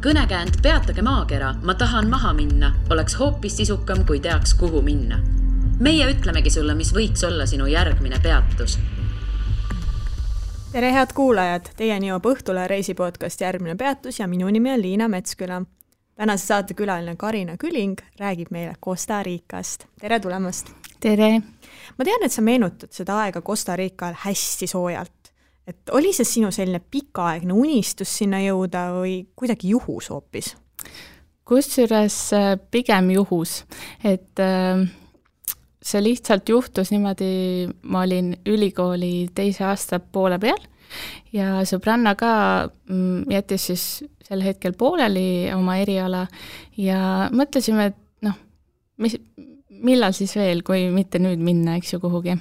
Kõnekäänd Peatage maakera, ma tahan maha minna, oleks hoopis sisukam, kui teaks, kuhu minna. Meie ütlemegi sulle, mis võiks olla sinu järgmine peatus. Tere head kuulajad, teieni jõuab Õhtule reisipodcast Järgmine peatus ja minu nimi on Liina Metsküla. Tänase saate külaline Karina Küling räägib meile Costa Ricast. Tere tulemast! Tere! Ma tean, et sa meenutad seda aega Costa Rical hästi soojalt. Et oli see sinu selline pikaaegne unistus sinna jõuda või kuidagi juhus hoopis? Kusjuures pigem juhus, et see lihtsalt juhtus niimoodi, ma olin ülikooli teise aasta poole peal ja sõbranna ka jättis siis sel hetkel pooleli oma eriala ja mõtlesime, et millal siis veel, kui mitte nüüd minna, eks ju, kuhugi.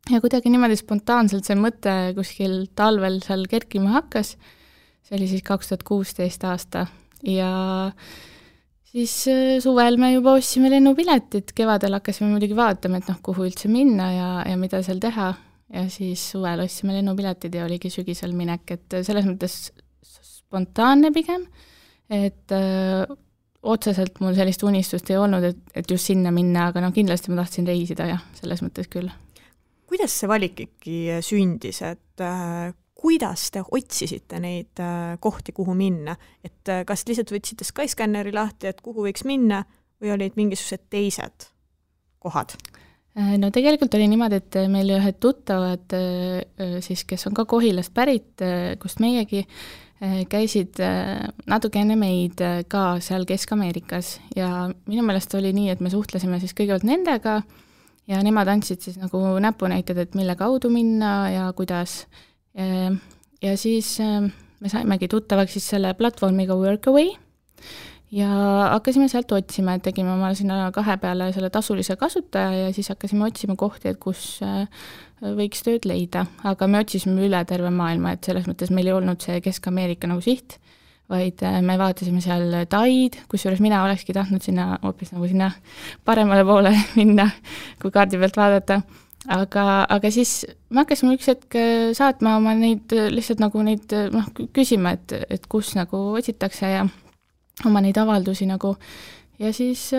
Ja kuidagi niimoodi spontaanselt see mõte kuskil talvel seal kerkima hakkas, see oli siis 2016 aasta ja siis suvel me juba ostsime lennupiletit, kevadel hakkasime muidugi vaatama, et kuhu üldse minna ja mida seal teha ja siis suvel ostsime lennupiletid ja oligi sügisel minek, et selles mõttes spontaanne pigem, et otseselt mul sellist unistust ei olnud, et just sinna minna, aga kindlasti ma tahtsin reisida ja selles mõttes küll. Kuidas see valik ikkagi sündis, et kuidas te otsisite neid kohti, kuhu minna? Et kas lihtsalt võtsite Skyscanneri lahti, et kuhu võiks minna või olid mingisugused teised kohad? No tegelikult oli niimoodi, et meil ühed tuttavad, siis, kes on ka Kohilast pärit, kust meiegi, käisid natuke enne meid ka seal Kesk-Ameerikas ja minu meelest oli nii, et me suhtlesime siis kõigepealt nendega ja nemad andsid siis nagu näpunäited, et mille kaudu minna ja kuidas. Ja siis me saimegi tuttavaks siis selle platvormiga Workaway ja hakkasime sealt otsima, et tegime oma sinna 2 peale selle tasulise kasutaja ja siis hakkasime otsima kohti, et kus võiks tööd leida. Aga me otsisime üle terve maailma, et selles mõttes meil ei olnud see Kesk-Ameerika nagu siht, vaid me vaatasime seal Taid, kusjuures mina olekski tahtnud sinna hoopis nagu sinna paremale poole minna, kui kaardi pealt vaadata. Aga siis me hakkasime üks hetk saatma oma neid lihtsalt nagu neid küsima, et kus nagu otsitakse ja oma neid avaldusi nagu. Ja siis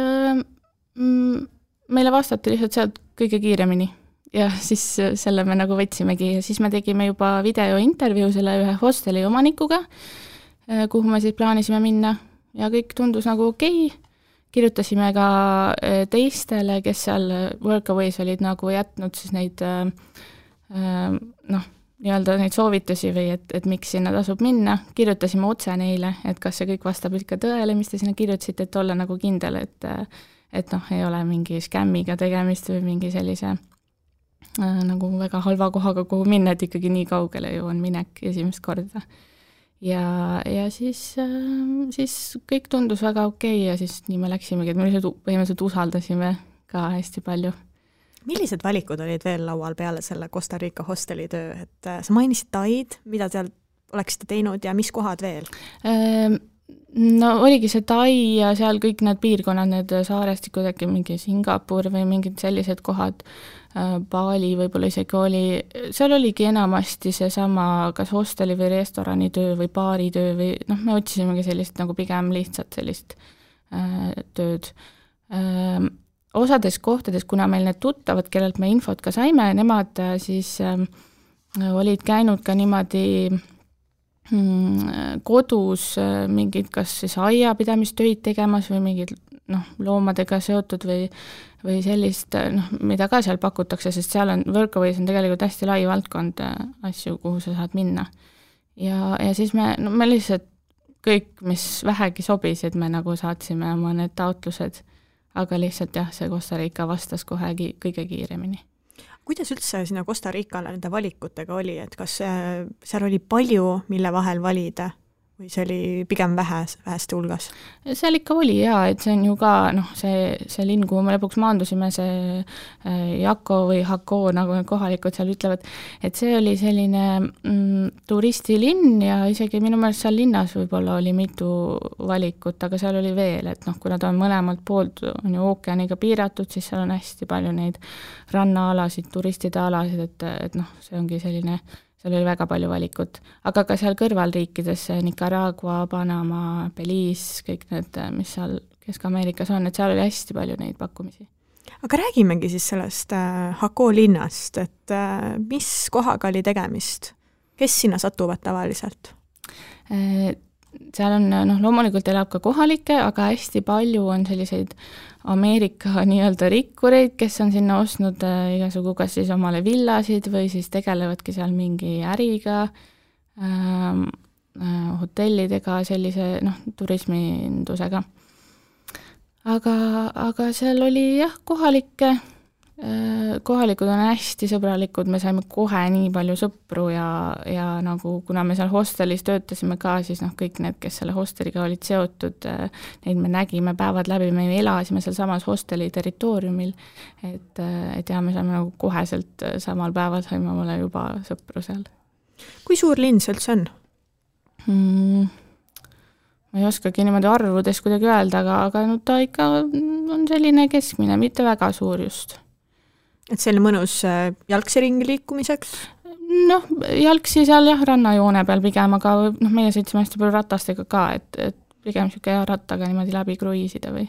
meile vastati lihtsalt sealt kõige kiiremini ja siis selle me nagu võtsimegi ja siis me tegime juba videointervjuu selle ühe hosteli omanikuga, kuhu me siis plaanisime minna ja kõik tundus nagu okei. Kirjutasime ka teistele, kes seal Workaways olid nagu jätnud siis neid nii-öelda neid soovitusi või et miks sinna tasub minna. Kirjutasime otse neile, et kas see kõik vastab ikka tõele, mis te sinna kirjutasite, et olla nagu kindel, et ei ole mingi skämmiga tegemist või mingi sellise nagu väga halva kohaga, kuhu minna, et ikkagi nii kaugele ju on minek esimest korda. Ja siis kõik tundus väga okei ja siis nii me läksimegi, et me põhimõtteliselt usaldasime ka hästi palju. Millised valikud olid veel laual peale selle Costa Rica hosteli töö? Et sa mainisid Taid, mida seal oleksite teinud ja mis kohad veel? No oligi see Tai ja seal kõik need piirkonnad, need saarestikud, äkki mingi Singapur või mingid sellised kohad, Bali võib-olla isegi oli, seal oligi enamasti seesama kas hosteli või restorani töö või baari töö või me otsisimegi sellist nagu pigem lihtsalt sellist tööd. Osades kohtades, kuna meil need tuttavad, kellelt me infot ka saime, nemad siis olid käinud ka niimoodi kodus mingid kas siis aiapidamistöid tegemas või mingid loomadega seotud või sellist, mida ka seal pakutakse, sest seal on, Workaways on tegelikult hästi lai valdkond asju, kuhu sa saad minna. Ja siis me lihtsalt kõik, mis vähegi sobisid, me nagu saatsime oma need taotlused, aga lihtsalt jah, see Costa Rica vastas kohe kõige kiiremini. Kuidas üldse sinna Costa Ricale nende valikutega oli, et kas seal oli palju, mille vahel valida või see oli pigem väheste hulgas? Seal ikka oli jaa, et see on ju ka see linn, kuhu me lõpuks maandusime, see Jako või Hako, nagu kohalikud seal ütlevad, et see oli selline turistilinn ja isegi minu meelest seal linnas võib-olla oli mitu valikut, aga seal oli veel, et kuna ta on mõlemalt poolt on ju ookeaniga piiratud, siis seal on hästi palju neid rannaalasid, turistide alasid, et see ongi selline seal oli väga palju valikut, aga ka seal kõrvalriikides, Nicaragua, Panama, Belize, kõik need, mis seal Kesk-Ameerikas on, et seal oli hästi palju neid pakkumisi. Aga räägimegi siis sellest Jacó linnast, et mis kohaga oli tegemist? Kes sinna satuvad tavaliselt? Seal on, loomulikult elab ka kohalikke, aga hästi palju on selliseid Ameerika nii-öelda rikkureid, kes on sinna ostnud igasugu kas siis omale villasid või siis tegelevadki seal mingi äriga, hotellidega, sellise turismindusega. Aga seal oli jah, kohalikud on hästi sõbralikud, me saime kohe nii palju sõpru ja nagu kuna me seal hostelis töötasime ka, siis kõik need, kes selle hosteliga olid seotud, neid me nägime päevad läbi, me elasime seal samas hosteli territooriumil, et me saime nagu koheselt samal päeval saime omale juba sõpru seal. Kui suur linn see üldse on? Ma ei oskagi niimoodi arvudes kuidagi öelda, aga ta ikka on selline keskmine, mitte väga suur just. Et selline mõnus jalgsi ringi liikumiseks? Jalgsi seal jah, rannajoone peal pigem, aga meie sõitsime hästi palju ratastega ka, et pigem siuke rattaga niimoodi läbi kruiisida või.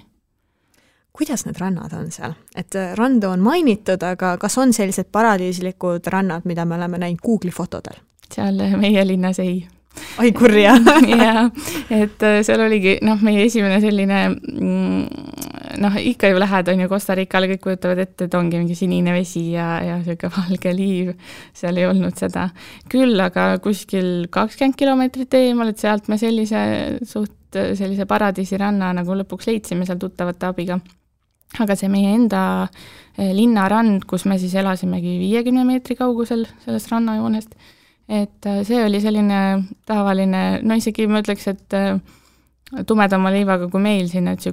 Kuidas need rannad on seal? Et randu on mainitud, aga kas on sellised paradiislikud rannad, mida me oleme näinud Google'i fotodel? Seal meie linnas ei. Ai kurja. Ja, et seal oligi, meie esimene selline, ikka ju lähed on ju Costa Ricale, kõik kujutavad ette, et ongi mingi sinine vesi ja selline valge liiv, seal ei olnud seda. Küll, aga kuskil 20 kilomeetrit eemal, et sealt me sellise paradiisiranna nagu lõpuks leidsime seal tuttavate abiga. Aga see meie enda linnarand, kus me siis elasimegi 50 meetri kaugusel sellest rannajoonest, et see oli selline tavaline, isegi ma ütleks, et tumedama leivaga kui meil siin, et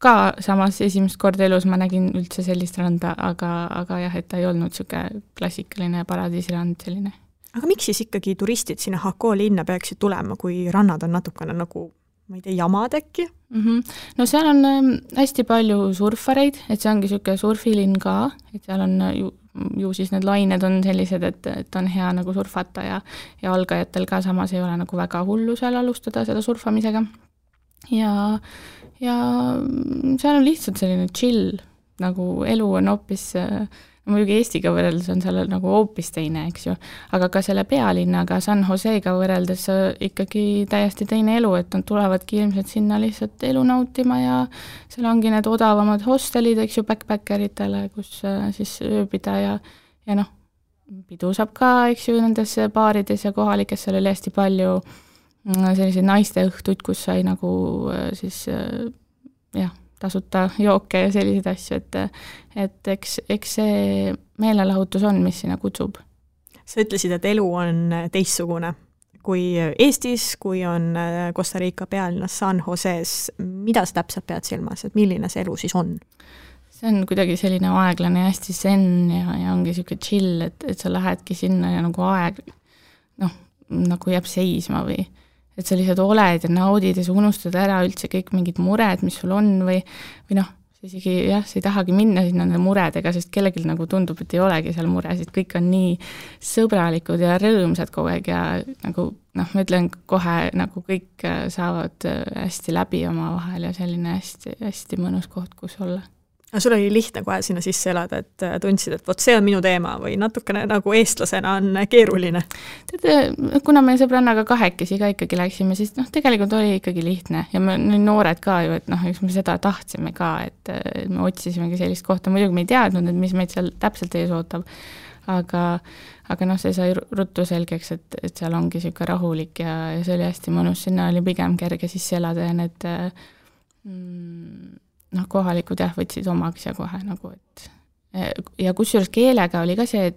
ka samas esimest korda elus ma nägin üldse sellist randa, aga jah, et ta ei olnud siuke klassikaline paradiisirand selline. Aga miks siis ikkagi turistid sinna Jacó linna peaksid tulema, kui rannad on natukene nagu, ma ei tea, jamad äkki? No seal on hästi palju surfareid, et see ongi siuke surfilinn ka, et seal on ju siis need lained on sellised, et on hea nagu surfata ja algajatel ka samas ei ole nagu väga hullu seal alustada seda surfamisega. Ja seal on lihtsalt selline chill, nagu elu on hoopis, muidugi Eestiga võrreldes on seal nagu hoopis teine, eks ju, aga ka selle pealinnaga San Joseega võrreldes ikkagi täiesti teine elu, et nad tulevadki ilmselt sinna lihtsalt elu nautima ja seal ongi need odavamad hostelid, eks ju, backpackeritele, kus siis ööbida ja pidu saab ka, eks ju, nendes baarides ja kohalikes seal oli hästi palju selliseid naiste õhtuid, kus sai nagu siis tasuta jooke ja selliseid asju, et eks see meelelahutus on, mis sinna kutsub. Sa ütlesid, et elu on teistsugune kui Eestis, kui on Costa Rica pealinnas San Joses. Mida sa täpselt pead silmas, et milline see elu siis on? See on kuidagi selline aeglane ja hästi zen ja ongi siuke chill, et sa lähedki sinna ja nagu aeg nagu jääb seisma või et sa lihtsalt oled ja naudid ja sa unustad ära üldse kõik mingid mured, mis sul on või sa isegi sa ei tahagi minna sinna nende muredega, sest kellelgi nagu tundub, et ei olegi seal muresid, kõik on nii sõbralikud ja rõõmsad kogu aeg ja nagu ma ütlen kohe, nagu kõik saavad hästi läbi oma vahel ja selline hästi, hästi mõnus koht, kus olla. Aga sul oli lihtne kohe sinna sisse elada, et tundsid, et vot see on minu teema või natukene nagu eestlasena on keeruline? Kuna me sõbrannaga kahekesi ka ikkagi läksime, siis tegelikult oli ikkagi lihtne ja me noored ka ju, et eks me seda tahtsime ka, et me otsisimegi sellist kohta, muidugi me ei teadnud, et mis meid seal täpselt ees ootab, aga see sai ruttu selgeks, et seal ongi siuke rahulik ja see oli hästi mõnus, sinna oli pigem kerge sisse elada ja need kohalikud võtsid omaks ja kohe nagu, et ja kusjuures keelega oli ka see,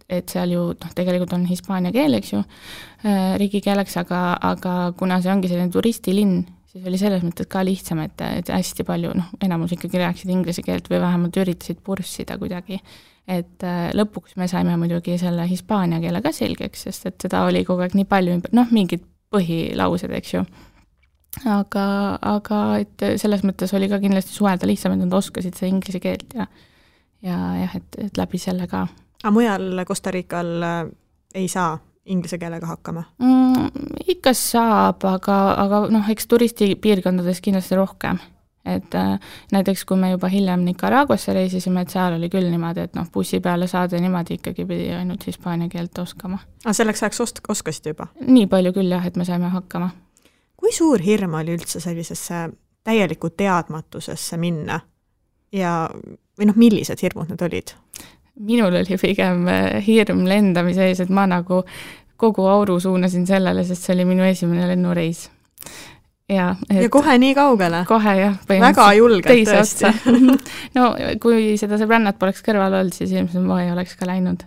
et seal ju tegelikult on hispaania keel, eks ju, riigikeeleks, aga kuna see ongi selline turistilinn, siis oli selles mõttes ka lihtsam, et hästi palju, enamus ikkagi rääksid inglise keelt või vähemalt üritasid purssida kuidagi, et lõpuks me saime muidugi selle hispaania keele ka selgeks, sest et seda oli kogu aeg nii palju, mingid põhilaused, eks ju. Aga et selles mõttes oli ka kindlasti suhelda lihtsam, et nad oskasid seda inglise keelt ja et läbi selle ka. Aga mujal Costa Rical ei saa inglise keelega hakkama? Ikka saab, aga eks turistipiirkondades kindlasti rohkem. Et näiteks kui me juba hiljem Nicaraguasse reisisime, et seal oli küll niimoodi, et bussi peale saada niimoodi ikkagi pidi ainult hispaania keelt oskama. Selleks ajaks oskasid juba? Nii palju küll jah, et me saime hakkama. Kui suur hirm oli üldse sellisesse täieliku teadmatusesse minna või millised hirmud need olid? Minul oli pigem hirm lendamise ees, et ma nagu kogu auru suunasin sellele, sest see oli minu esimene lennureis. Ja kohe nii kaugele? Kohe jah. Väga julgelt tõesti. No kui seda sõbrannat poleks kõrval olnud, siis ilmselt ma ei oleks ka läinud.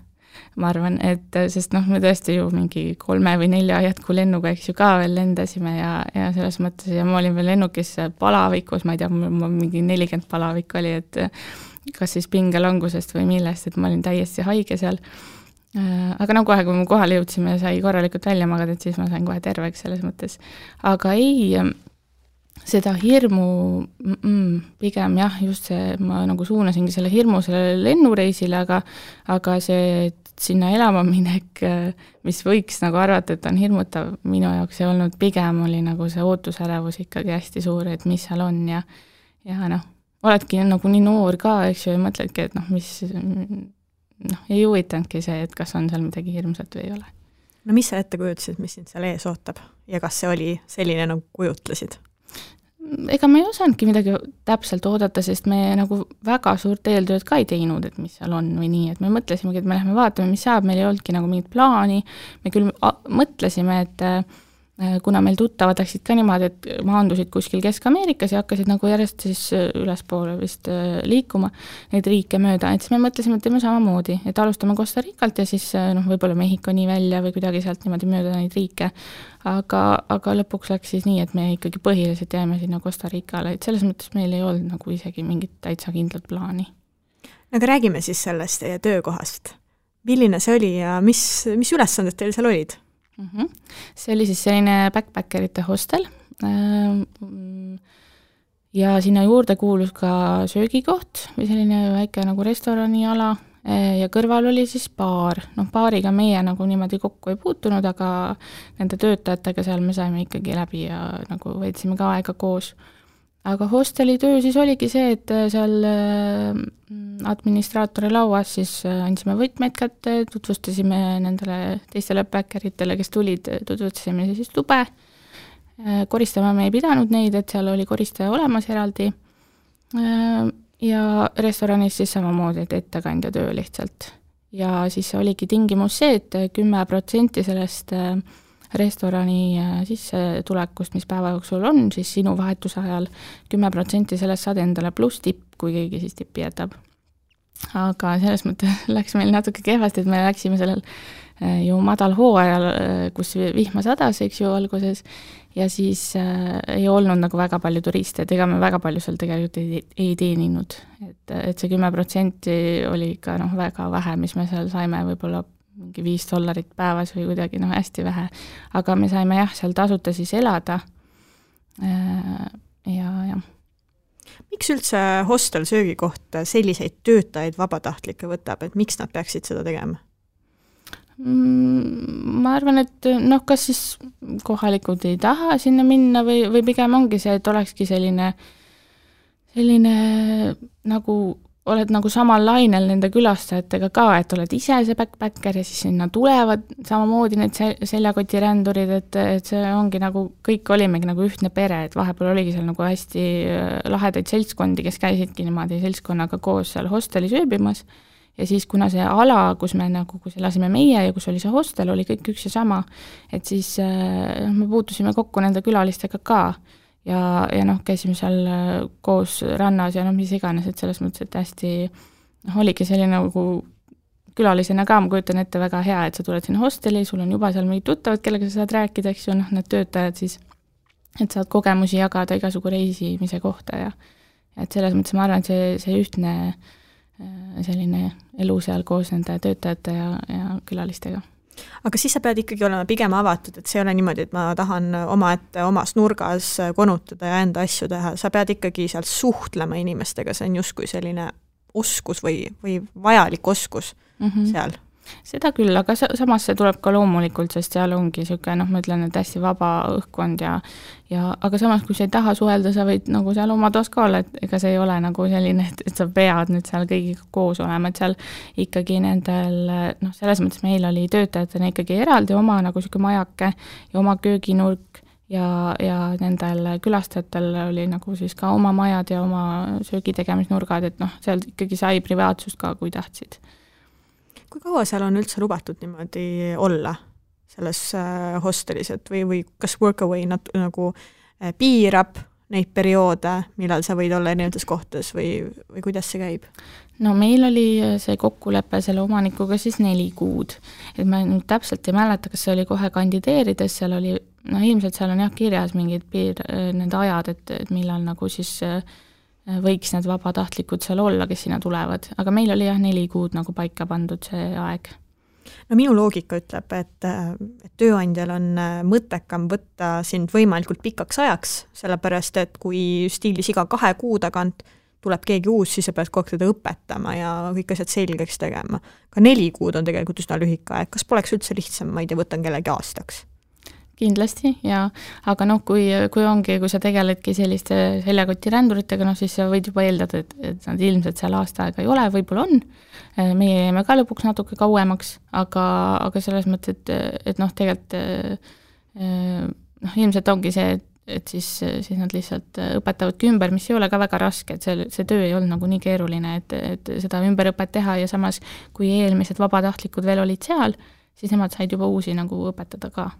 Ma arvan, et sest me tõesti ju mingi 3 või 4 jätku lennuga eks ju ka veel lendasime ja selles mõttes ja ma olin veel lennukis palavikus, ma ei tea, mul mingi 40 palavik oli, et kas siis pingelangusest või millest, et ma olin täiesti haige seal. Aga kohe, kui me kohale jõudsime, sai korralikult välja magada, et siis ma sain kohe terveks selles mõttes. Aga ei, seda hirmu, pigem jah, just see, ma nagu suunasingi selle hirmu selle lennureisile, aga see sinna elama minek, mis võiks nagu arvata, et on hirmutav, minu jaoks ei olnud, pigem oli nagu see ootusärevus ikkagi hästi suur, et mis seal on ja oledki nagu nii noor ka, eks ju, ja mõtledki, et mis ei huvitanudki see, et kas on seal midagi hirmsat või ei ole. No mis sa ette kujutasid, mis sind seal ees ootab ja kas see oli selline nagu kujutlesid? Ega me ei osanudki midagi täpselt oodata, sest me nagu väga suurt eeltööd ka ei teinud, et mis seal on või nii, et me mõtlesimegi, et me lähme vaatame, mis saab, meil ei olnudki nagu mingit plaani, me küll mõtlesime, et kuna meil tuttavad läksid ka niimoodi, et maandusid kuskil Kesk-Ameerikas ja hakkasid nagu järjest siis ülespoole vist liikuma neid riike mööda, et siis me mõtlesime, et teeme samamoodi, et alustame Costa Ricalt ja siis võib-olla Mehhiko nii välja või kuidagi sealt niimoodi mööda neid riike, aga lõpuks läks siis nii, et me ikkagi põhiliselt jääme sinna Costa Ricale, et selles mõttes meil ei olnud nagu isegi mingit täitsa kindlat plaani. Aga räägime siis sellest teie töökohast. Milline see oli ja mis ülesanded teil seal olid? See oli siis selline backpackerite hostel ja sinna juurde kuulus ka söögikoht või selline väike nagu restoraniala ja kõrval oli siis baar. Baariga meie nagu niimoodi kokku ei puutunud, aga nende töötajatega seal me saime ikkagi läbi ja nagu veetsime ka aega koos. Aga hosteli töö siis oligi see, et seal administraatori lauas siis andsime võtmeid kätte, tutvustasime nendele teistele backpackeritele, kes tulid, tutvustasime siis tube. Koristama me ei pidanud neid, et seal oli koristaja olemas eraldi. Ja restoranis siis samamoodi, et ettekandja töö lihtsalt. Ja siis oligi tingimus see, et 10% sellest restorani sissetulekust, mis päeva jooksul on, siis sinu vahetuse ajal 10% sellest saad endale pluss tipp, kui keegi siis tippi jätab. Aga selles mõttes läks meil natuke kehvasti, et me läksime sellel ju madal hooajal, kus vihma sadas, eks ju, alguses, ja siis ei olnud nagu väga palju turiste, et ega me väga palju seal tegelikult ei teeninud. Et see 10% oli ikka väga vähe, mis me seal saime võib-olla mingi $5 päevas või kuidagi hästi vähe. Aga me saime seal tasuta siis elada. Ja. Miks üldse hostel söögikoht selliseid töötajaid vabatahtlikke võtab, et miks nad peaksid seda tegema? Ma arvan, et kas siis kohalikud ei taha sinna minna või pigem ongi see, et olekski selline nagu oled nagu samal lainel nende külastajatega ka, et oled ise see backpacker ja siis sinna tulevad samamoodi need seljakotirändurid, et see ongi nagu, kõik olimegi nagu ühtne pere, et vahepeal oligi seal nagu hästi lahedaid seltskondi, kes käisidki niimoodi seltskonnaga koos seal hostelis ööbimas ja siis kuna see ala, kus elasime meie ja kus oli see hostel, oli kõik üks ja sama, et siis me puutusime kokku nende külalistega ka. Ja käisime seal koos rannas ja mis iganes, et selles mõttes, et hästi oligi selline nagu külalisena ka, ma kujutan ette väga hea, et sa tuled sinna hosteli, sul on juba seal mingid tuttavad, kellega sa saad rääkida, eks ju, need töötajad siis, et saad kogemusi jagada igasugu reisimise kohta ja et selles mõttes ma arvan, et see ühtne selline elu seal koos nende töötajate ja külalistega. Aga siis sa pead ikkagi olema pigem avatud, et see ei ole niimoodi, et ma tahan omas nurgas konutada ja enda asju teha. Sa pead ikkagi seal suhtlema inimestega, see on justkui selline oskus või vajalik oskus seal. Seda küll, aga samas see tuleb ka loomulikult, sest seal ongi niisugune, noh, ma ütlen, et hästi vaba õhkkond ja aga samas, kui sa ei taha suhelda, sa võid nagu seal oma toas ka olla, et ega see ei ole nagu selline, et sa pead nüüd seal kõigiga koos olema, et seal ikkagi nendel, noh, selles mõttes meil oli töötajatena ikkagi eraldi oma nagu niisugune majake ja oma kööginurk ja nendel külastajatel oli nagu siis ka oma majad ja oma söögitegemisnurgad, et noh, seal ikkagi sai privaatsust ka, kui tahtsid. Kui kaua seal on üldse lubatud niimoodi olla selles hostelis, et või kas Workaway nagu piirab neid perioode, millal sa võid olla erinevates kohtades või kuidas see käib? No meil oli see kokkulepe selle omanikuga siis 4 kuud. Et ma nüüd täpselt ei mäleta, kas see oli kohe kandideerides, seal oli, no ilmselt seal on jah kirjas mingid need ajad, et millal nagu siis võiks need vabatahtlikud seal olla, kes sinna tulevad. Aga meil oli jah 4 kuud nagu paika pandud see aeg. No minu loogika ütleb, et tööandjal on mõttekam võtta sind võimalikult pikaks ajaks, sellepärast, et kui stiilis iga 2 kuu tagant tuleb keegi uus, siis sa pead kogu aeg teda õpetama ja kõik asjad selgeks tegema. Ka 4 kuud on tegelikult üsna lühike aeg. Kas poleks üldse lihtsam, ma ei tea, võtan kellegi aastaks? Kindlasti, ja aga noh, kui sa tegeledki selliste seljakoti-ränduritega, noh siis sa võid juba eeldada, et nad ilmselt seal aasta aega ei ole, võib-olla on. Meie jäime ka lõpuks natuke kauemaks, aga selles mõttes, et noh, tegelikult noh, ilmselt ongi see, et siis nad lihtsalt õpetavadki ümber, mis ei ole ka väga raske, et see töö ei olnud nagu nii keeruline, et seda ümberõpet teha ja samas, kui eelmised vabatahtlikud veel olid seal, siis nemad said juba uusi nagu õpetada ka.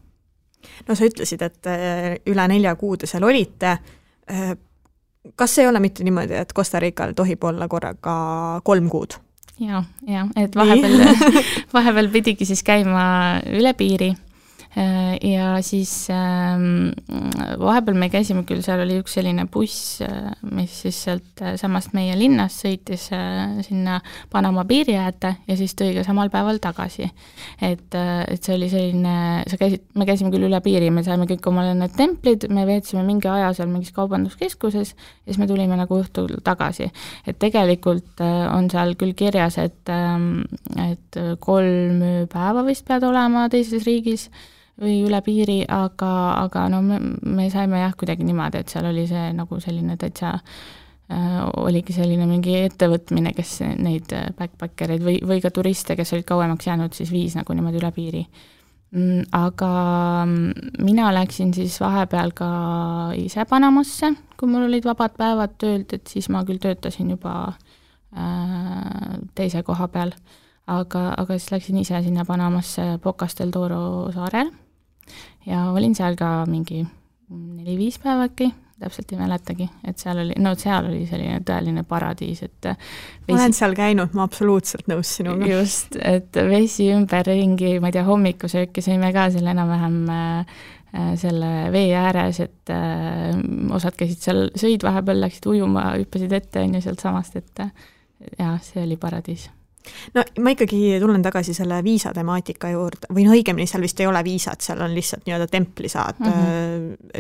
No sa ütlesid, et üle 4 kuud seal olite. Kas ei ole mitte niimoodi, et Costa Rical tohib olla korraga 3 kuud? Ja, et vahepeal pidigi siis käima üle piiri ja siis vahepeal me käisime küll, seal oli üks selline buss, mis siis sealt samast meie linnast sõitis sinna Panama piiri äärde ja siis tõi ka samal päeval tagasi. Et see oli selline, me käisime küll üle piiri, me saime kõik omale need templid, me veetsime mingi aja seal mingis kaubanduskeskuses ja siis me tulime nagu õhtul tagasi. Et tegelikult on seal küll kirjas, et 3 päeva vist pead olema teises riigis või üle piiri, aga no me saime jah kuidagi niimoodi, et seal oli see nagu selline täitsa oligi selline mingi ettevõtmine, kes neid backpackereid või ka turiste, kes olid kauemaks jäänud, siis viis nagu niimoodi üle piiri. Aga mina läksin siis vahepeal ka ise Panamasse, kui mul olid vabad päevad töölt, et siis ma küll töötasin juba teise koha peal, aga siis läksin ise sinna Panamasse Bocas del Toro saarel ja olin seal ka mingi 4-5 päeva äkki, täpselt ei mäletagi, et seal oli selline tõeline paradiis, et ma olen seal käinud, ma absoluutselt nõus sinuga. Just, et vesi ümberringi, ma ei tea, hommikusööki sõime ka selle enam-vähem selle vee ääres, et osad käisid seal, sõid vahepeal, läksid ujuma, hüppasid ette ja sealt samast, et ja, see oli paradiis. No ma ikkagi tulen tagasi selle viisa temaatika juurde, või no õigemini seal vist ei ole viisat, seal on lihtsalt nii-öelda templi saad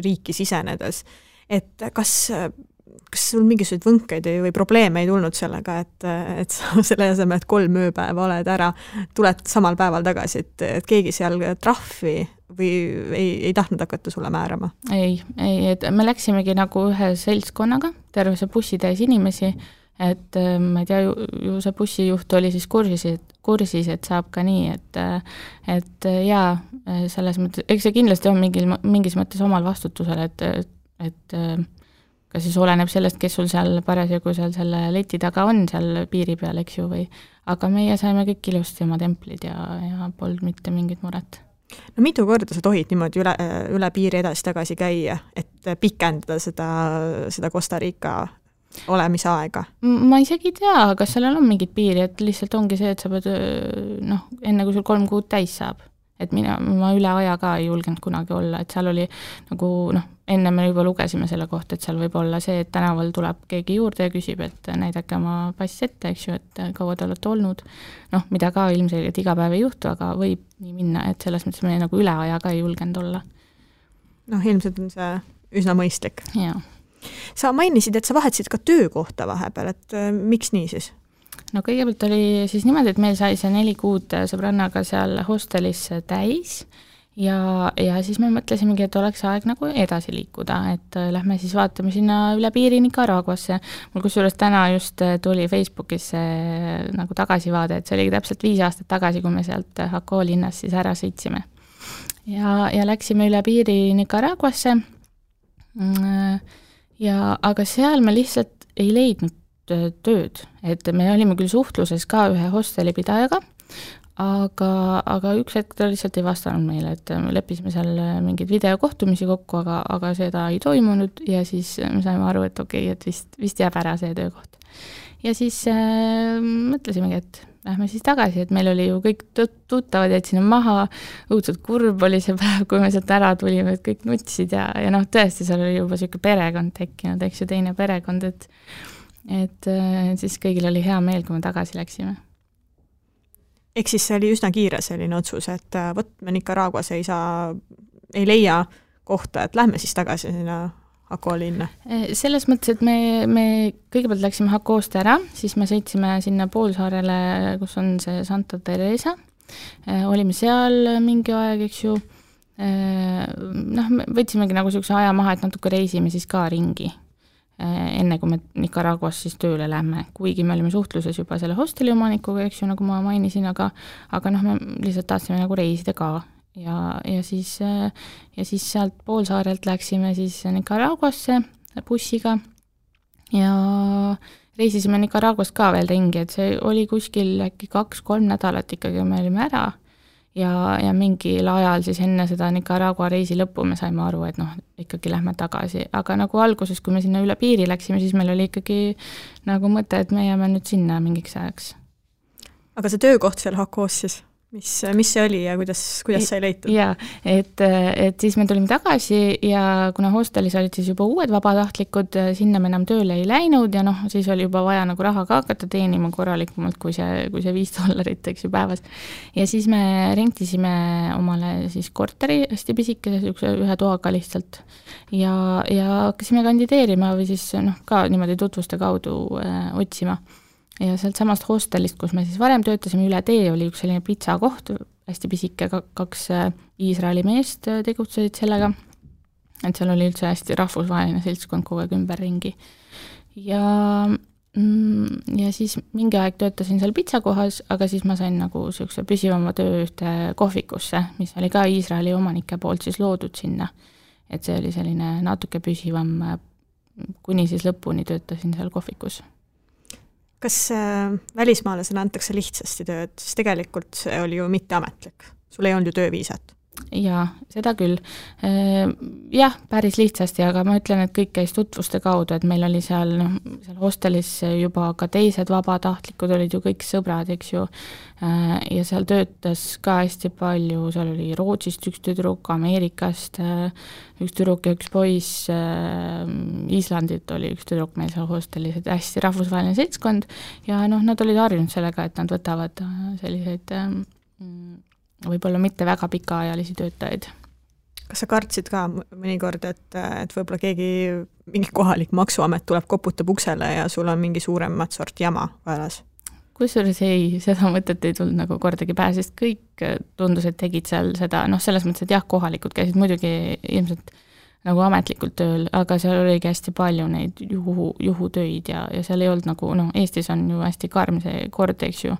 riiki sisenedes. Et kas sul mingisuguseid võnkeid või probleeme ei tulnud sellega, et sa selle asemel, et 3 ööpäeva oled ära, tuled samal päeval tagasi, et keegi seal trahvi või ei tahtnud hakata sulle määrama? Ei, et me läksimegi nagu ühe seltskonnaga, terve see bussitäis inimesi, et ma ei tea, ju see bussijuht oli siis kursis, et saab ka nii, et jaa, selles mõttes, eks see kindlasti on mingis mõttes omal vastutusel, et ka siis oleneb sellest, kes sul seal parasjagu seal selle leti taga on seal piiri peal, eks ju, aga meie saime kõik ilusti oma templid ja polnud mitte mingit muret. No mitu korda sa tohid niimoodi üle piiri edasi-tagasi käia, et pikendada seda Costa Rica olemise aega? Ma isegi ei tea, kas sellel on mingid piiri, et lihtsalt ongi see, et sa pead, enne kui sul 3 kuud täis saab. Et ma üle aja ka ei julgenud kunagi olla, et seal oli nagu, enne me juba lugesime selle kohta, et seal võib olla see, et tänaval tuleb keegi juurde ja küsib, et näidake oma pass ette, eks ju, et kaua te olete olnud. Mida ka ilmselgelt iga päev ei juhtu, aga võib nii minna, et selles mõttes me nagu üle aja ka ei julgenud olla. Ilmselt on see üsna mõistlik. Jaa. Sa mainisid, et sa vahetasid ka töökohta vahepeal, et miks nii siis? no kõigepealt oli siis niimoodi, et meil sai see 4 kuud sõbrannaga seal hostelis täis ja siis me mõtlesimegi, et oleks aeg nagu edasi liikuda, et lähme siis vaatame sinna üle piiri Nicaraguasse. Mul kusjuures täna just tuli Facebookis nagu tagasivaade, et see oli täpselt 5 aastat tagasi, kui me sealt Jaco linnas siis ära sõitsime. Ja läksime üle piiri Nicaraguasse, aga seal me lihtsalt ei leidnud tööd, et me olime küll suhtluses ka ühe hostelipidajaga, aga üks hetk ta lihtsalt ei vastanud meile, et me leppisime seal mingeid videokohtumisi kokku, aga seda ei toimunud ja siis me saime aru, et okei, et vist jääb ära see töökoht. Ja siis mõtlesimegi, et lähme siis tagasi, et meil oli ju kõik tuttavad, jäid sinna maha, õudselt kurb oli see päev, kui me sealt ära tulime, et kõik nutsid ja noh, tõesti seal oli juba selline perekond tekkinud, eks ju, teine perekond, et siis kõigil oli hea meel, kui me tagasi läksime. Ehk siis see oli üsna kiire selline otsus, et me Nicaraguas ei leia kohta, et lähme siis tagasi sinna Jaco linna? Selles mõttes, et me kõigepealt läksime Jacost ära, siis me sõitsime sinna poolsaarele, kus on see Santa Teresa. Olime seal mingi aeg, eks ju. Me võtsimegi nagu sellise aja maha, et natuke reisime siis ka ringi, enne kui me Nicaraguas siis tööle lähme. Kuigi me olime suhtluses juba selle hosteli omanikuga, eks ju, nagu ma mainisin, aga me lihtsalt tahtsime nagu reisida ka. Ja siis sealt poolsaarelt läksime siis Nicaraguasse bussiga ja reisisime Nicaraguas ka veel ringi, et see oli kuskil äkki 2-3 nädalat ikkagi, me olime ära ja mingil ajal siis enne seda Nicaragua reisi lõppu me saime aru, et ikkagi lähme tagasi, aga nagu alguses, kui me sinna üle piiri läksime, siis meil oli ikkagi nagu mõte, et me jääme nüüd sinna mingiks ajaks. Aga see töökoht seal Jacos siis? Mis see oli ja kuidas sai leitud? Jaa, et siis me tulime tagasi ja kuna hostelis olid siis juba uued vabatahtlikud, sinna me enam tööle ei läinud ja siis oli juba vaja nagu raha ka hakata teenima korralikumalt kui see $5, eks ju päevas. Ja siis me rentisime omale siis korteri hästi pisikese, ühe toaga lihtsalt ja hakkasime kandideerima või siis ka niimoodi tutvuste kaudu otsima. Ja sealt samast hostelist, kus me siis varem töötasime üle tee, oli üks selline pitsa koht, hästi pisike, 2 Iisraeli meest tegutsesid sellega, et seal oli üldse hästi rahvusvaheline seltskond kogu aeg ümberringi. Ja siis mingi aeg töötasin seal pitsa kohas, aga siis ma sain nagu sellise püsivama töö ühte kohvikusse, mis oli ka Iisraeli omanike poolt siis loodud sinna. Et see oli selline natuke püsivam, kuni siis lõpuni töötasin seal kohvikus. Kas välismaalasele antakse lihtsasti tööd, siis tegelikult see oli ju mitteametlik. Sul ei olnud ju tööviisat. Jaa, seda küll. Jah, päris lihtsasti, aga ma ütlen, et kõik käis tutvuste kaudu, et meil oli seal hostelis juba ka teised vabatahtlikud, olid ju kõik sõbrad, eks ju, ja seal töötas ka hästi palju, seal oli Rootsist üks tüdruk, Ameerikast üks tüdruk ja üks poiss, Islandit oli üks tüdruk meil seal hostelis, et hästi rahvusvaheline seltskond ja nad olid harjunud sellega, et nad võtavad selliseid võib-olla mitte väga pikaajalisi töötajaid. Kas sa kartsid ka mõnikord, et võib-olla mingi kohalik maksuamet tuleb, koputab uksele ja sul on mingi suuremat sort jama vajas? Kusjuures seda mõtet ei tulnud nagu kordagi pähe, sest kõik tundus, et tegid seal seda, selles mõttes, et jah, kohalikud käisid muidugi ilmselt nagu ametlikult tööl, aga seal oligi hästi palju neid juhutöid ja seal ei olnud nagu, Eestis on ju hästi karm see kord, eks ju,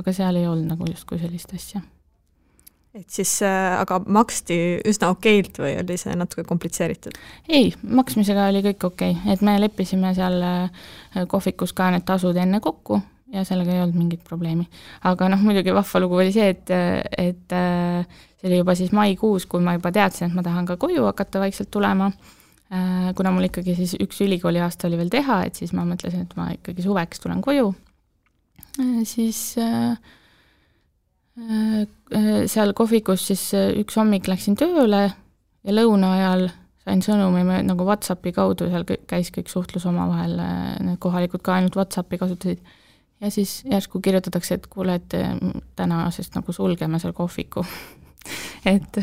aga seal ei olnud nagu justkui sellist asja. Et siis aga maksti üsna okeilt või oli see natuke komplitseeritud? Ei, maksmisega oli kõik okei, et me leppisime seal kohvikus ka need tasud enne kokku ja sellega ei olnud mingit probleemi. Aga muidugi vahva lugu oli see, et see oli juba siis maikuus, kui ma juba teadsin, et ma tahan ka koju hakata vaikselt tulema. Kuna mul ikkagi siis üks ülikooli aasta oli veel teha, et siis ma mõtlesin, et ma ikkagi suveks tulen koju. Siis seal kohvikus siis üks hommik läksin tööle ja lõuna ajal sain sõnumi nagu WhatsAppi kaudu, seal käis kõik suhtlus omavahel, need kohalikud ka ainult WhatsAppi kasutasid ja siis järsku kirjutatakse, et kuule, et tänasest nagu sulgeme seal kohviku et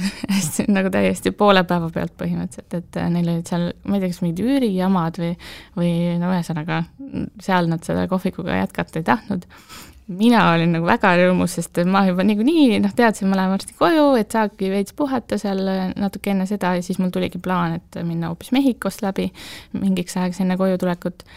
nagu täiesti poole päeva pealt põhimõtteliselt, et neil olid seal, ma ei tea, kas mingid üürijamad või no ühesõnaga seal nad seda kohvikuga jätkata ei tahtnud. Mina olin nagu väga rõõmus, sest ma juba niikuinii teadsin, ma lähen varsti koju, et saabki veits puhata seal natuke enne seda ja siis mul tuligi plaan, et minna hoopis Mehhikost läbi mingiks ajaks enne koju tulekut.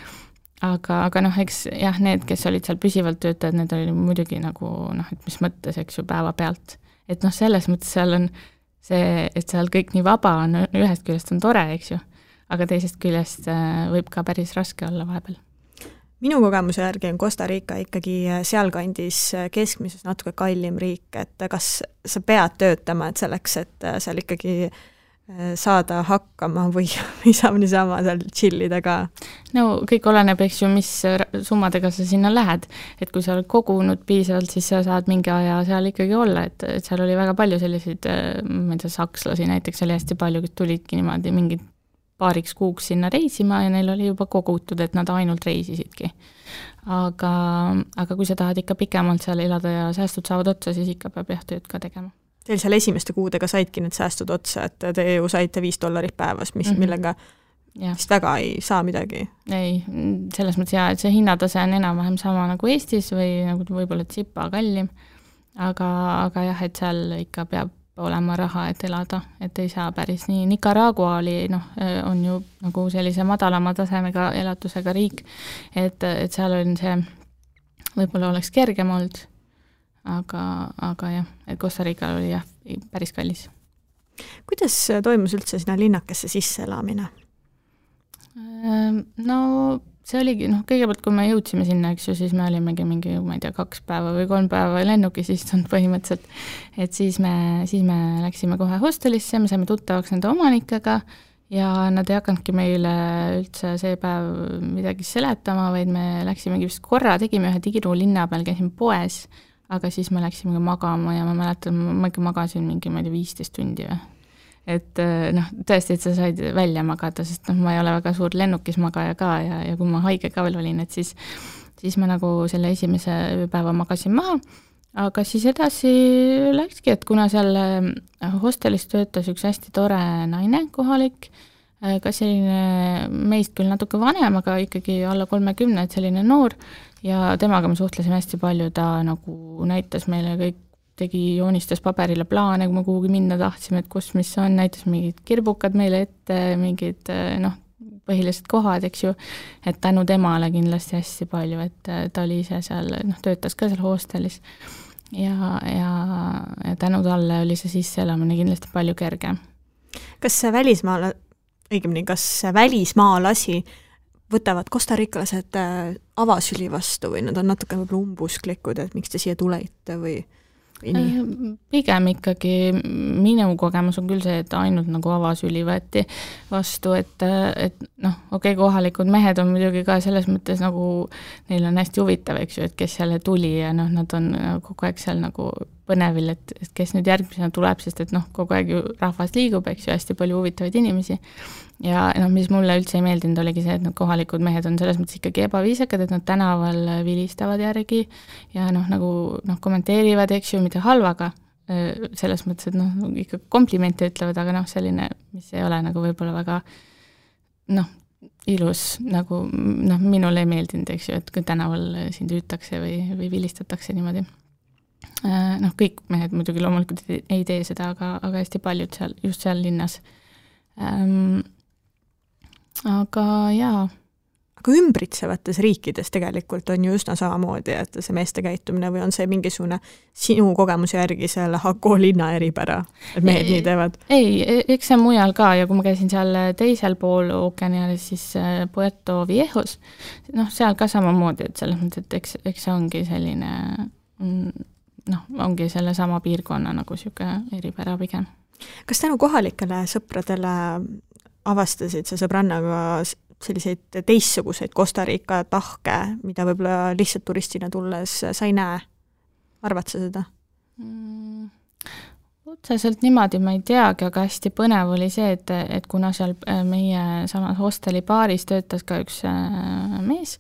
Aga eks jah, need, kes olid seal püsivalt töötajad, need oli muidugi nagu et mis mõttes, eks ju, päeva pealt. Et selles mõttes seal on see, et seal kõik nii vaba on, ühest küljest on tore, eks ju, aga teisest küljest võib ka päris raske olla vahepeal. Minu kogemuse järgi on Costa Rica ikkagi sealkandis keskmises natuke kallim riik, et kas sa pead töötama, et selleks, et seal ikkagi saada hakkama või saab niisama seal chillida ka? No kõik oleneb, eks ju, mis summadega sa sinna lähed. Et kui sa oled kogunud piisavalt, siis sa saad mingi aja seal ikkagi olla, et seal oli väga palju selliseid, ma ei tea, sakslasi näiteks oli hästi palju, kes tulidki niimoodi mingid paariks kuuks sinna reisima ja neil oli juba kogutud, et nad ainult reisisidki. Aga kui sa tahad ikka pikemalt seal elada ja säästud saavad otsa, siis ikka peab jah tööd ka tegema. Teil seal esimeste kuudega saidki need säästud otsa, et te ju saite $5 päevas, millega vist väga ei saa midagi? Ei, selles mõttes jah, et see hinnatase on enam-vähem sama nagu Eestis või nagu võib-olla tsipa kallim, aga jah, et seal ikka peab olema raha, et elada, et ei saa päris nii. Nicaragua oli, on ju nagu sellise madalama tasemega elatusega riik, et seal on see, võib-olla oleks kergem olnud, aga jah, et Costa Rica oli jah, päris kallis. Kuidas toimus üldse sinna linnakesse sisse elamine? No see oligi, kõigepealt kui me jõudsime sinna, eks ju, siis me olimegi mingi, ma ei tea, 2 päeva või 3 päeva lennukis istunud põhimõtteliselt, et siis me läksime kohe hostelisse, me saime tuttavaks nende omanikega ja nad ei hakanudki meile üldse see päev midagi seletama, vaid me läksimegi vist korra, tegime ühe tiiru linna peal, käisime poes, aga siis me läksime magama ja ma mäletan, ma ikka magasin mingi, ma ei tea, 15 tundi või. Et tõesti, et sa said välja magada, sest ma ei ole väga suur lennukis magaja ka ja kui ma haige ka veel olin, et siis ma nagu selle esimese ööpäeva magasin maha, aga siis edasi läkski, et kuna seal hostelis töötas üks hästi tore naine kohalik, ka selline meist küll natuke vanem, aga ikkagi alla 30, et selline noor ja temaga me suhtlesime hästi palju, ta nagu näitas meile kõik, joonistas paberile plaane, kui me kuhugi minna tahtsime, et kus mis on, näitas mingid kirbukad meile ette, mingid põhilised kohad, eks ju, et tänu temale kindlasti hästi palju, et ta oli ise seal, töötas ka seal hostelis ja tänu talle oli see sisseelamine kindlasti palju kergem. Kas välismaalasi võtavad kostarikalased avasüli vastu või nad on natuke umbusklikud, et miks te siia tulete või Pigem ikkagi minu kogemus on küll see, et ainult nagu avasüli võeti vastu, et okei, kohalikud mehed on muidugi ka selles mõttes nagu, neil on hästi huvitav, eks ju, et kes jälle tuli ja nad on kogu aeg seal nagu põnevil, et kes nüüd järgmisena tuleb, sest et kogu aeg ju rahvas liigub, eks ju, hästi palju huvitavaid inimesi. Ja mis mulle üldse ei meeldinud, oligi see, et need kohalikud mehed on selles mõttes ikkagi ebaviisakad, et nad tänaval vilistavad järgi ja kommenteerivad, eks ju, mida halvaga, selles mõttes, et ikka komplimente ütlevad, aga selline, mis ei ole nagu võib-olla väga ilus, nagu minule ei meeldinud, eks ju, et kui tänaval sind hüütakse või vilistatakse niimoodi. Kõik mehed muidugi loomulikult ei tee seda, aga hästi paljud seal, just seal linnas. Aga jaa. Aga ümbritsevates riikides tegelikult on ju üsna samamoodi, et see meeste käitumine või on see mingisugune sinu kogemuse järgi selle Hako linna eripära, et mehed nii teevad? Ei, eks see mujal ka ja kui ma käisin seal teisel pool ookeanialis, siis Puerto Viejos, seal ka samamoodi, et selles mõttes, et eks see ongi selline, ongi selle sama piirkonna nagu siuke eripära pigem. Kas tänu kohalikele sõpradele avastasid sa sõbrannaga selliseid teistsuguseid Costa Rica tahke, mida võib-olla lihtsalt turistina tulles sa ei näe? Arvad sa seda? Otseselt niimoodi ma ei teagi, aga hästi põnev oli see, et kuna seal meie samas hosteli baaris töötas ka üks mees,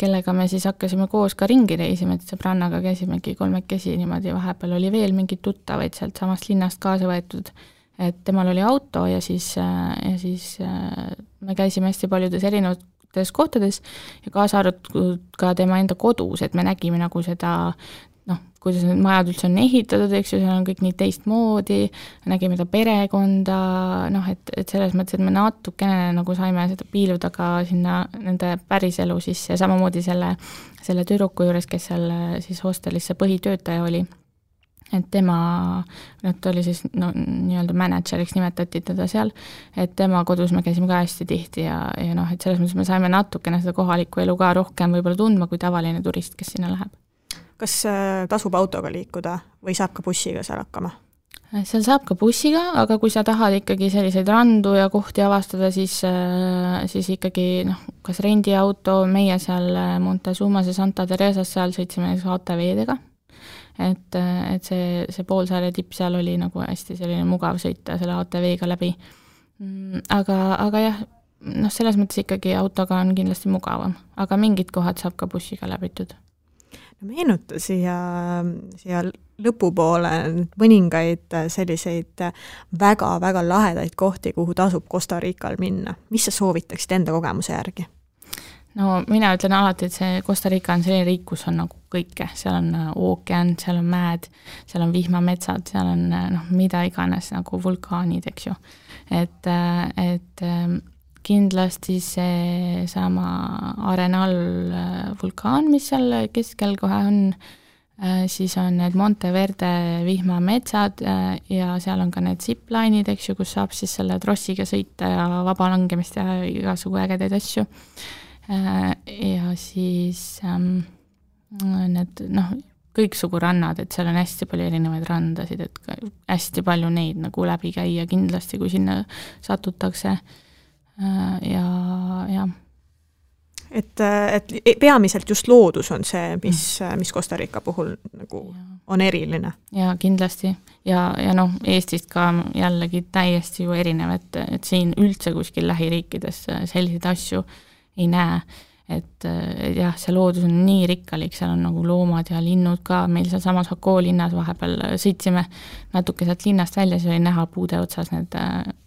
kellega me siis hakkasime koos ka ringi reisima, et sõbrannaga käisimegi 3 niimoodi, vahepeal oli veel mingid tuttavaid sealt samast linnast kaasa võetud, et temal oli auto ja siis me käisime hästi paljudes erinevates kohtades ja kaasa arvatud ka tema enda kodus, et me nägime nagu seda kuidas need majad üldse on ehitatud, eks ju, seal on kõik nii teistmoodi, nägime ta perekonda, et selles mõttes, et me natukene nagu saime seda piiluda ka sinna nende päriselu sisse ja samamoodi selle tüdruku juures, kes seal siis hostelis see põhitöötaja oli, et tema, ta oli siis nii-öelda manager'iks nimetati teda seal, et tema kodus me käisime ka hästi tihti ja et selles mõttes me saime natukene seda kohalikku elu ka rohkem võib-olla tundma kui tavaline turist, kes sinna läheb. Kas tasub autoga liikuda või saab ka bussiga seal hakkama? Seal saab ka bussiga, aga kui sa tahad ikkagi selliseid randu ja kohti avastada, siis ikkagi kas rendiauto, meie seal Montezumas ja Santa Teresas seal sõitsime ATV-dega, et see poolsaare tipp seal oli nagu hästi selline mugav sõita selle ATV-ga läbi. Aga jah, selles mõttes ikkagi autoga on kindlasti mugavam, aga mingid kohad saab ka bussiga läbitud. Meenuta siia lõpupoole mõningaid selliseid väga-väga lahedaid kohti, kuhu tasub Costa Rical minna. Mis sa soovitaksid enda kogemuse järgi? No mina ütlen alati, et see Costa Rica on selline riik, kus on nagu kõike. Seal on ookean, seal on mäed, seal on vihmametsad, seal on mida iganes nagu vulkaanid, eks ju. Et kindlasti see sama Arenal vulkaan, mis seal keskel kohe on, siis on need Monteverde vihmametsad ja seal on ka need zipline'id, eks ju, kus saab siis selle trossiga sõita ja vaba langemist ja igasugu ägedaid asju. Ja siis need kõiksugu rannad, et seal on hästi palju erinevaid randasid, et hästi palju neid nagu läbi käia kindlasti, kui sinna satutakse. Ja. Et peamiselt just loodus on see, mis Costa Rica puhul nagu on eriline. Ja kindlasti. Ja Eestist ka jällegi täiesti ju erinev, et siin üldse kuskil lähiriikides selliseid asju ei näe. Et jah, see loodus on nii rikkalik, seal on nagu loomad ja linnud ka, meil seal samas Hako linnas vahepeal sõitsime natuke sealt linnast välja, see oli näha puude otsas, need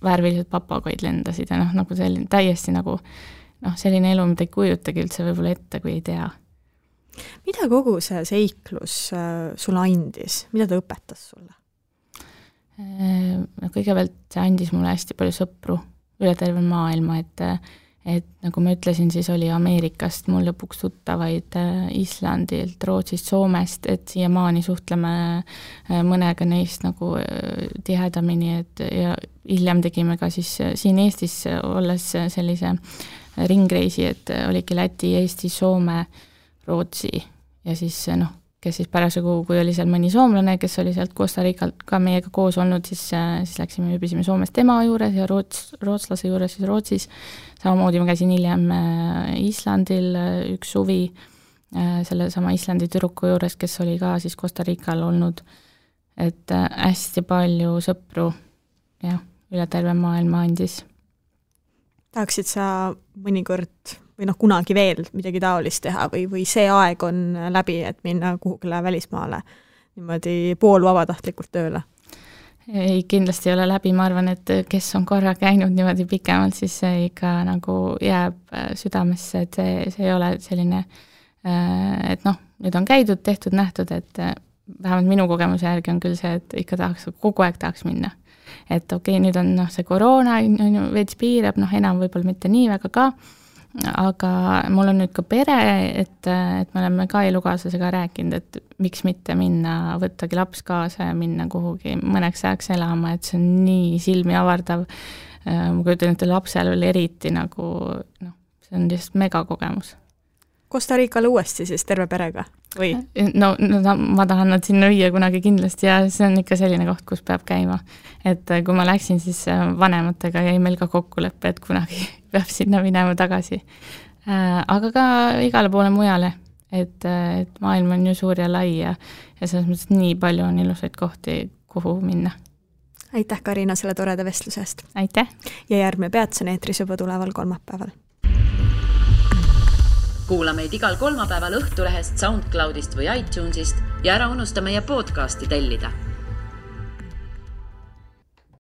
värvilised papagoid lendasid ja nagu selline täiesti nagu selline elu, mida ei kujutagi üldse võib-olla ette, kui ei tea. Mida kogu see seiklus sulle andis? Mida ta õpetas sulle? Kõigepealt see andis mulle hästi palju sõpru üle terve maailma, et nagu ma ütlesin, siis oli Ameerikast mul lõpuks tuttavaid Islandilt, Rootsist, Soomest, et siiamaani suhtleme mõnega neist nagu tihedamini, ja hiljem tegime ka siis siin Eestis olles sellise ringreisi, et oligi Läti, Eesti, Soome, Rootsi ja siis kes siis parasjagu, kui oli seal mõni soomlane, kes oli sealt Costa Ricalt ka meiega koos olnud, siis läksime ööbisime Soomest tema juures ja rootslase juures siis Rootsis. Samamoodi ma käisin hiljem Islandil üks suvi selle sama Islandi tüdruku juures, kes oli ka siis Costa Rical olnud. Et hästi palju sõpru ja üle terve maailma andis. Tahaksid sa mõnikord või kunagi veel midagi taolist teha või see aeg on läbi, et minna kuhugile välismaale niimoodi poolvabatahtlikult tööle? Ei, kindlasti ei ole läbi, ma arvan, et kes on korra käinud niimoodi pikemalt, siis see ikka nagu jääb südamesse, et see ei ole selline, et nüüd on käidud, tehtud, nähtud, et vähemalt minu kogemuse järgi on küll see, et ikka kogu aeg tahaks minna. Et okei, nüüd on see koroona, veits piirab, enam võib-olla mitte nii väga ka, aga mul on nüüd ka pere, et me oleme ka elukaaslasega rääkinud, et miks mitte minna, võttagi laps kaasa ja minna kuhugi mõneks ajaks elama, et see on nii silmi avardav. Ma kujutan, et lapsel oli eriti nagu, see on lihtsalt mega kogemus. Costa Ricale uuesti siis terve perega? Või? No, ma tahan nad sinna viia kunagi kindlasti ja see on ikka selline koht, kus peab käima. Et kui ma läksin, siis vanematega jäi meil ka kokkuleppe, et kunagi peab sinna minema tagasi. Aga ka igale poole mujale, et maailm on ju suur ja lai ja selles mõttes nii palju on ilusaid kohti, kuhu minna. Aitäh, Karina, selle toreda vestlusest. Aitäh! Ja järgmine peatuse eetris juba tuleval kolmapäeval. kuula meid igal kolmapäeval Õhtulehest, SoundCloudist või iTunesist ja ära unusta meie podcasti tellida